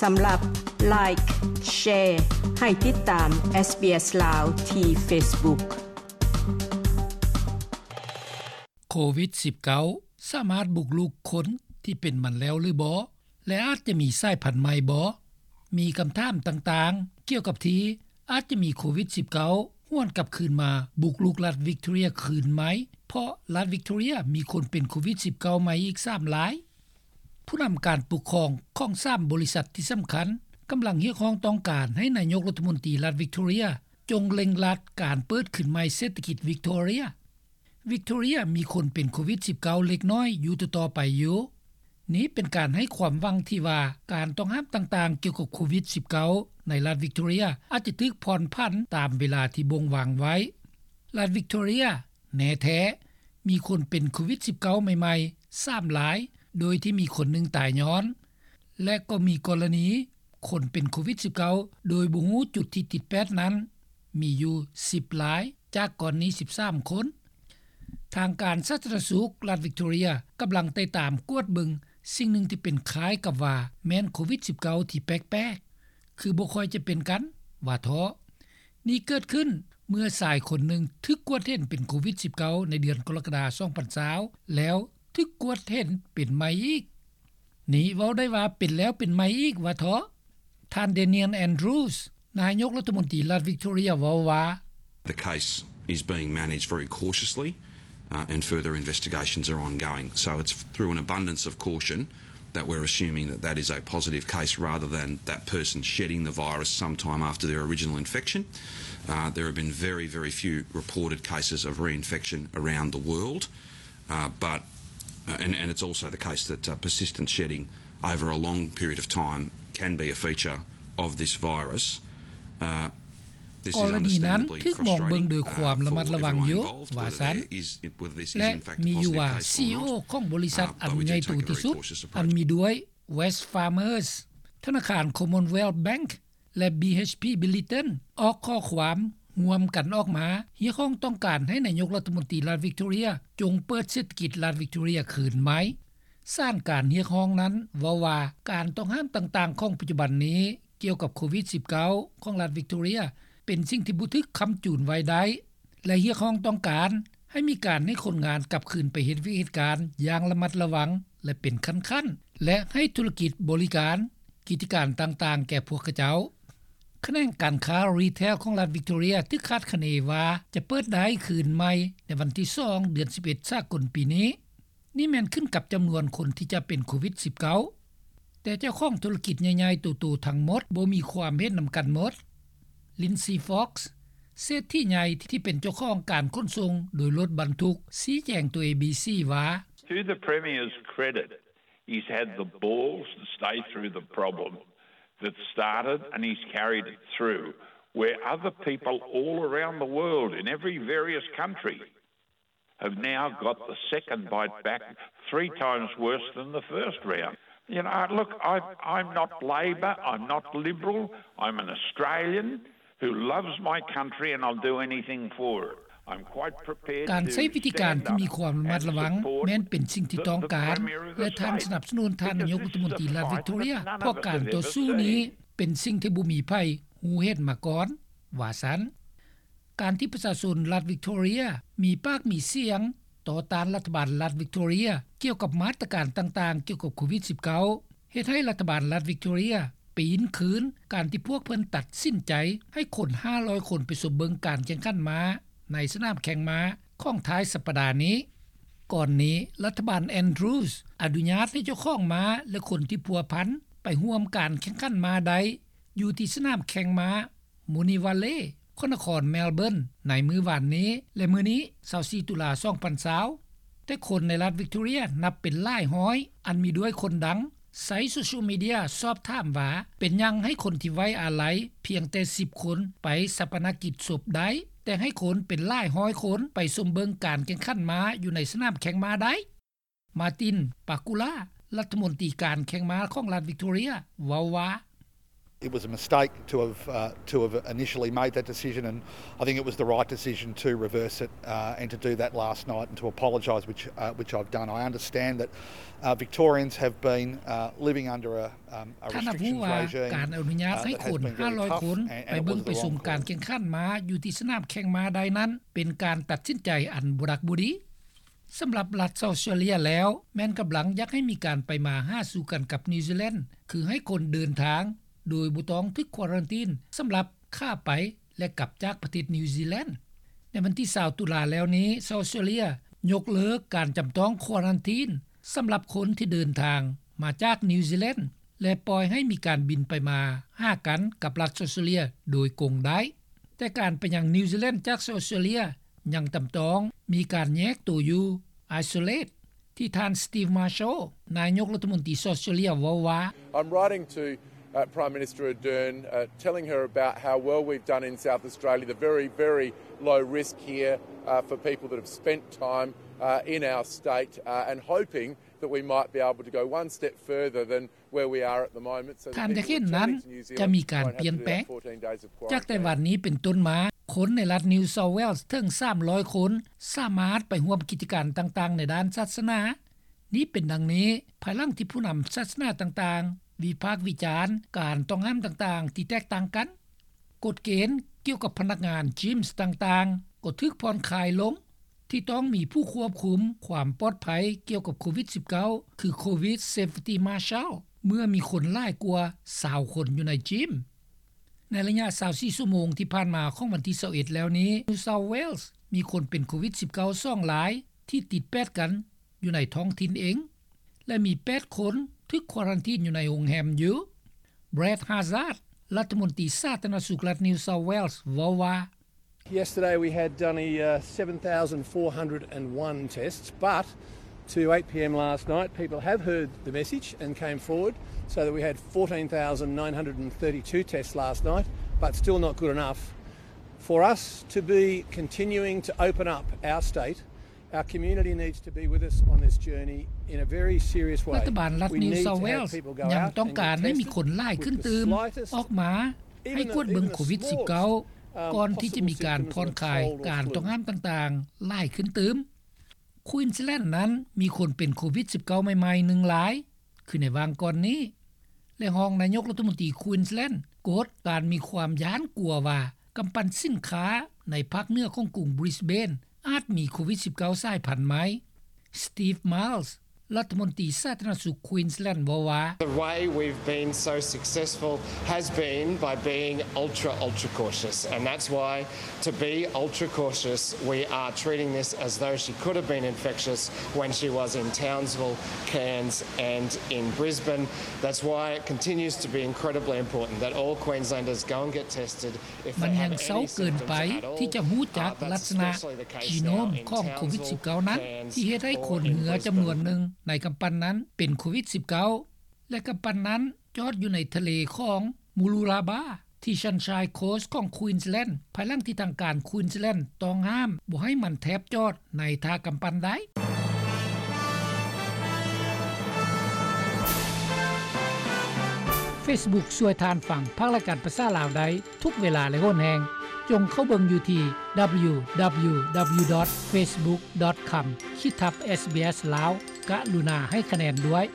ສຳລັບ Like, Share ໃຫ້ຕິດຕາມ SBS ລາວ ທີ່ Facebook. ໂຄວິດສິບເກົ້າ ສາມາດບຸກລຸກຄົນທີ່ເປັນມັນແລ້ວຫຼືບໍ່ ແລະ ອາດຈະມີສາຍພັນໃໝ່ບໍ່? ມີຄຳຖາມຕ່າງໆ ກ່ຽວກັບທີ່ອາດຈະມີໂຄວິດສິບເກົ້າ ຫວນກັບຄືນມາບຸກລຸກລັດວິກຕໍເຣຍຄືນໃໝ່ ເພາະລັດວິກຕໍເຣຍມີຄົນເປັນໂຄວິດສິບເກົ້າໃໝ່ອີກສາມລາຍ. ຜູ້ນຳການປົກຄອງຂອງສາມບໍລິສັດທີ່ສຳຄັນ ກຳລັງຮຽກຮ້ອງຕ້ອງການໃຫ້ນາຍົກລັດຖະມົນຕີລັດວິກຕໍເຣຍ ຈົ່ງເລັ່ງລັດການເປີດຄືນໃໝ່ເສດຖະກິດວິກຕໍເຣຍ. ວິກຕໍເຣຍມີຄົນເປັນໂຄວິດສິບເກົ້າເລັກນ້ອຍຢູ່ຕໍ່ໆໄປຢູ່. ນີ້ເປັນການໃຫ້ຄວາມຫວັງທີ່ວ່າ ການຕ້ອງຫ້າມຕ່າງໆກ່ຽວກັບໂຄວິດສິບເກົ້າໃນລັດວິກຕໍເຣຍ ອາດຈະຖືກຜ່ອນຜັນຕາມເວລາທີ່ບົ່ງວາງໄວ້. ລັດວິກຕໍເຣຍ ແນ່ແທ້ ມີຄົນເປັນໂຄວິດສິບເກົ້າໃໝ່ໆສາມລາຍ ໂດຍທີ່ມີຄົນໜຶ່ງຕາຍຍ້ອນ ແລະ ກໍມີກໍລະນີຄົນເປັນໂຄວິດສິບເກົ້າໂດຍບໍ່ຮູ້ຈຸດທີ່ຕິດແປດນັ້ນ ມີຢູ່ສິບລາຍ ຈາກກ່ອນນີ້ສິບສາມຄົນ. ທາງການສາທາລະນະສຸກລັດວິກຕໍເຣຍ ກຳລັງໄຕ່ຕາມກວດເບິ່ງສິ່ງໜຶ່ງທີ່ເປັນຄ້າຍກັບວ່າແມ່ນໂຄວິດສິບເກົ້າທີ່ແປກໆ ຄືບໍ່ຄ່ອຍຈະເປັນກັນ ວ່າເທາະ. ນີ້ເກີດຂຶ້ນເມື່ອຊາຍຄົນໜຶ່ງຖືກກວດເຫັນເປັນໂຄວິດສິບເກົ້າໃນເດືອນກໍລະກະດາສອງພັນຊາວ ແລ້ວຖືກກວດເຫັນເປັນໃໝ່ອີກ. ນີ້ເວົ້າໄດ້ວ່າເປັນແລ້ວເປັນໃໝ່ອີກ ວ່າເທາະ. ທ່ານ Daniel Andrews ນາຍົກລັດຖະມົນຕີລັດວິກຕໍເຣຍ ເວົ້າວ່າ The case is being managed very cautiously, uh, and further investigations are ongoing. So it's through an abundance of caution that we're assuming that that is a positive case rather than that person shedding the virus sometime after their original infection. Uh, there have been very, very few reported cases of reinfection around the world, uh, but, uh, and, and it's also the case that, uh, persistent shedding over a long period of time can be a feature of this virus. Uh, ກໍລະນີນັ້ນຖືກມອງເບິ່ງໂດຍຄວາມລະມັດລະວັງຢູ່ ວ່າຊັ້ນ ແລະ ມີຢູ່ວ່າ ຊີອີໂອ ຂອງບໍລິສັດອັນໃຫຍ່ໂຕທີ່ສຸດ ອັນມີດ້ວຍ Wesfarmers, ທະນາຄານ Commonwealth Bank ແລະ BHP Billiton ອອກຂໍ້ຄວາມຮ່ວມກັນອອກມາ ຮຽກຮ້ອງຕ້ອງການໃຫ້ນາຍົກລັດຖະມົນຕີລັດວິກຕໍເຣຍ ຈົ່ງເປີດເສດຖະກິດລັດວິກຕໍເຣຍຄືນໃໝ່. ສານການຮຽກຮ້ອງນັ້ນເວົ້າວ່າ ການຕ້ອງຫ້າມຕ່າງໆຂອງປັດຈຸບັນນີ້ ກ່ຽວກັບໂຄວິດສິບເກົ້າຂອງລັດວິກຕໍເຣຍ ເປັນສິ່ງທີ່ບໍ່ຖືກຄ້ຳຈູນໄວ້ໄດ້ ແລະ ຮຽກຮ້ອງຕ້ອງການໃຫ້ມີການໃຫ້ຄົນງານກັບຄືນໄປເຮັດວຽກເຮັດການຢ່າງລະມັດລະວັງ ແລະ ເປັນຂັ້ນໆ ແລະ ໃຫ້ທຸລະກິດບໍລິການ ກິດຈະການຕ່າງໆແກ່ພວກຂະເຈົ້າ. ຂະແໜງການຄ້າ retail ຂອງລັດວິກຕໍເຣຍ ຖືກຄາດຄະເນວ່າຈະເປີດໄດ້ຄືນໃໝ່ໃນວັນທີສອງ ເດືອນສິບເອັດ ສາກົນປີນີ້. ນີ້ແມ່ນຂຶ້ນກັບຈຳນວນຄົນທີ່ຈະເປັນໂຄວິດສິບເກົ້າ ແຕ່ເຈົ້າຂອງທຸລະກິດໃຫຍ່ໆໂຕໆທັງໝົດບໍ່ມີຄວາມເຫັນນຳກັນໝົດ. Lindsay Fox ເສດຖີໃຫຍ່ທີ່ເປັນເຈົ້າຂອງການຂົນສົ່ງໂດຍລົດບັນທຸກ ຊີ້ແຈງຕໍ່ ເອບີຊີ ວ່າ To the Premier's credit, he's had the balls to stay through the problem that started and he's carried it through, where other people all around the world in every various country have now got the second bite back three times worse than the first round. You know, look, I, I'm not Labor, I'm not Liberal, I'm an Australian who loves my country and I'll do anything for it. I'm quite prepared to stand up and support the people who are suffering. ການໃຊ້ວິທີການທີ່ມີຄວາມລະມັດລະວັງແມ່ນເປັນສິ່ງທີ່ຕ້ອງການ ແລະ ທ່ານສະໜັບສະໜູນທ່ານນາຍົກລັດຖະມົນຕີລັດວິກຕໍເຣຍ ເພາະການຕໍ່ສູ້ນີ້ເປັນສິ່ງທີ່ບໍ່ມີໃຜຮູ້ເຫັນມາກ່ອນ ວ່າຊັ້ນ. ການທີ່ປະຊາຊົນລັດວິກຕໍເຣຍມີປາກມີສຽງຕໍ່ຕ້ານລັດຖະບານລັດວິກຕໍເຣຍ ກ່ຽວກັບມາດຕະການຕ່າງໆກ່ຽວກັບໂຄວິດສິບເກົ້າ ເຮັດໃຫ້ລັດຖະບານລັດວິກຕໍເຣຍປີນຄືນ ການທີ່ພວກເພິ່ນຕັດສິນໃຈໃຫ້ຄົນຫ້າຮ້ອຍຄົນໄປຊົມເບິ່ງການແຂ່ງຂັນມ້າໃນສະໜາມແຂ່ງມ້າຂອງທ້າຍສັບປະດານີ້. ກ່ອນນີ້ ລັດຖະບານ Andrews ອະນຸຍາດໃຫ້ເຈົ້າຂອງມ້າ ແລະ ຄົນທີ່ພົວພັນໄປຮ່ວມການແຂ່ງຂັນມ້າໄດ້ ຢູ່ທີ່ສະໜາມແຂ່ງມ້າ Moonee Valley ຂອງນະຄອນ Melbourne ໃນມື້ວານນີ້ ແລະ ມື້ນີ້ ຊາວສີ່ ຕຸລາ ສອງພັນຊາວ. ແຕ່ຄົນໃນລັດວິກຕໍເຣຍນັບເປັນຫຼາຍຮ້ອຍ ອັນມີດ້ວຍຄົນດັງ ໃຊ້ໂຊຊຽວມີເດຍສອບຖາມວ່າ ເປັນຫຍັງໃຫ້ຄົນທີ່ໄວ້ອາໄລພຽງແຕ່ສິບຄົນໄປຊາປະນະກິດສົບໄດ້ ແຕ່ໃຫ້ຄົນເປັນຫຼາຍຮ້ອຍຄົນໄປຊົມເບິ່ງການແຂ່ງຂັນມ້າຢູ່ໃນສະໜາມແຂ່ງມ້າໄດ້? Martin Pakula ລັດຖະມົນຕີການແຂ່ງມ້າຂອງລັດວິກຕໍເຣຍ ເວົ້າວ່າ It was a mistake to have, uh, to have initially made that decision, and I think it was the right decision to reverse it, uh, and to do that last night and to apologise, which, uh, which I've done. I understand that, uh, Victorians have been, uh, living under a, um, a ທ່ານຮັບຮູ້ວ່າ ການອະນຸຍາດໃຫ້ຄົນຫ້າຮ້ອຍຄົນໄປເບິ່ງໄປຊົມການແຂ່ງຂັນມ້າຢູ່ທີ່ສະໜາມແຂ່ງມ້າໄດ້ນັ້ນ ເປັນການຕັດສິນໃຈອັນບໍ່ດັກບໍ່ດີ. ສຳລັບລັດອອສເຕຣເລຍແລ້ວ ແມ່ນກຳລັງຢາກໃຫ້ມີການໄປມາຫາສູ່ກັນກັບນິວຊີແລນ ຄືໃຫ້ຄົນເດີນທາງໂດຍບໍ່ຕ້ອງຖືກຄວາຣັນທີນ ສຳລັບຂາໄປ ແລະ ກັບຈາກປະເທດນິວຊີແລນ. ໃນວັນທີຊາວຕຸລາແລ້ວນີ້ ອອສເຕຣເລຍຍົກເລີກການຈຳຕ້ອງຄວາຣັນທີນ ສຳລັບຄົນທີ່ເດີນທາງມາຈາກນິວຊີແລນ ແລະ ປ່ອຍໃຫ້ມີການບິນໄປມາຫາກັນກັບລັດອອສເຕຣເລຍໂດຍກົງໄດ້. ແຕ່ການໄປຍັງນິວຊີແລນຈາກອອສເຕຣເລຍຍັງຈຳຕ້ອງມີການແຍກໂຕຢູ່ isolate ທີ່ທ່ານ Steve Marshall ນາຍົກລັດຖະມົນຕີອອສເຕຣເລຍເວົ້າວ່າ I'm writing to, uh, Prime Minister Ardern, uh, telling her about how well we've done in South Australia, the very, very low risk here, uh, for people that have spent time, uh, in our state, uh, and hoping that we might be able to go one step further than ທ່ານຢາກເຫັນນັ້ນຈະມີການປ່ຽນແປງ. ຈາກແຕ່ວັນນີ້ເປັນຕົ້ນມາ, ຄົນໃນລັດ New South Wales ເຖິງສາມຮ້ອຍຄົນ ສາມາດໄປຮ່ວມກິດຈະການຕ່າງໆໃນດ້ານສາສະໜາ. ນີ້ເປັນດັ່ງນີ້ ພາຍຫຼັງທີ່ຜູ້ນຳສາສະໜາຕ່າງໆ ວິພາກວິຈານການຕ້ອງຫ້າມຕ່າງໆທີ່ແຕກຕ່າງກັນ. ກົດເກນກ່ຽວກັບພະນັກງານ Gyms ຕ່າງໆ ກໍຖືກຜ່ອນຄາຍລົງ ທີ່ຕ້ອງມີຜູ້ຄວບຄຸມຄວາມປອດໄພກ່ຽວກັບໂຄວິດສິບເກົ້າ ຄື Covid Safety Marshal ເມື່ອມີຄົນຫຼາຍກວ່າຊາວຄົນຢູ່ໃນ Gym. ໃນໄລຍະຊາວສີ່ຊົ່ວໂມງທີ່ຜ່ານມາຂອງວັນທີຊາວເອັດແລ້ວນີ້ New South Wales ມີຄົນເປັນໂຄວິດສິບເກົ້າສອງລາຍ ທີ່ຕິດແປດກັນຢູ່ໃນທ້ອງຖິ່ນເອງ ແລະ ມີແປດຄົນຖືກຄວາຣັນທີນຢູ່ໃນໂຮງແຮມຢູ່. Brad Hazzard ລັດຖະມົນຕີສາທາລະນະສຸກລັດ New South Wales ເວົ້າວ່າ Yesterday we had only, uh, seven thousand four hundred and one tests, but to eight p.m. last night, people have heard the message and came forward, so that we had fourteen thousand nine hundred and thirty-two tests last night, but still not good enough. For us to be continuing to open up our state, our community needs to be with us on this journey in a very serious way. ລັດຖະບານລັດ New South Wales ຍັງຕ້ອງການໃຫ້ມີຄົນຫຼາຍຂຶ້ນຕື່ມ ອອກມາ ໃຫ້ກວດເບິ່ງໂຄວິດສິບເກົ້າ ກ່ອນທີ່ຈະມີການຜ່ອນຄາຍການຕ້ອງຫ້າມຕ່າງໆຫຼາຍຂຶ້ນຕື່ມ. Queensland ນັ້ນມີຄົນເປັນໂຄວິດສິບເກົ້າໃໝ່ໆໜຶ່ງລາຍ ຄືໃນຫວ່າງກ່ອນນີ້ ແລະ ຮອງນາຍົກລັດຖະມົນຕີ Queensland ກົດການມີຄວາມຢ້ານກົວວ່າກຳປັ່ນສິນຄ້າໃນພາກເໜືອຂອງກຸງ Brisbane ອາດມີໂຄວິດສິບເກົ້າສາຍພັນໃໝ່. Steve Miles ລັດຖະມົນຕີສາທາລະນະສຸກ Queensland ເວົ້າວ່າ The way we've been so successful has been by being ultra, ultra cautious, and that's why, to be ultra cautious, we are treating this as though she could have been infectious when she was in Townsville, Cairns and in Brisbane. That's why it continues to be incredibly important that all Queenslanders go and get tested. ມັນແຮ່ງເຊົາເກີນໄປທີ່ຈະຮູ້ຈັກລັກສະນະ genome ຂອງໂຄວິດສິບເກົ້ານັ້ນ ທີ່ເຮັດໃຫ້ຄົນເຮືອຈຳນວນໜຶ່ງໃນກຳປັ່ນນັ້ນເປັນໂຄວິດສິບເກົ້າ ແລະ ກຳປັ່ນນັ້ນຈອດຢູ່ໃນທະເລຂອງ Mooloolaba ທີ່ Sunshine Coast ຂອງ Queensland ພາຍຫຼັງທີ່ທາງການ Queensland ຕ້ອງຫ້າມບໍ່ໃຫ້ມັນແທບຈອດໃນທ່າກຳປັ່ນໄດ້. Facebook ຊ່ວຍທ່ານຟັງພາກລາຍການພາສາລາວໄດ້ທຸກເວລາ ແລະ ຫົນແຮງ. ຈົ່ງເຂົ້າເບິ່ງຢູ່ທີ່ www.facebook.com/sbslaos. ກະລຸນາໃຫ້ຄະແນນດ້ວຍ.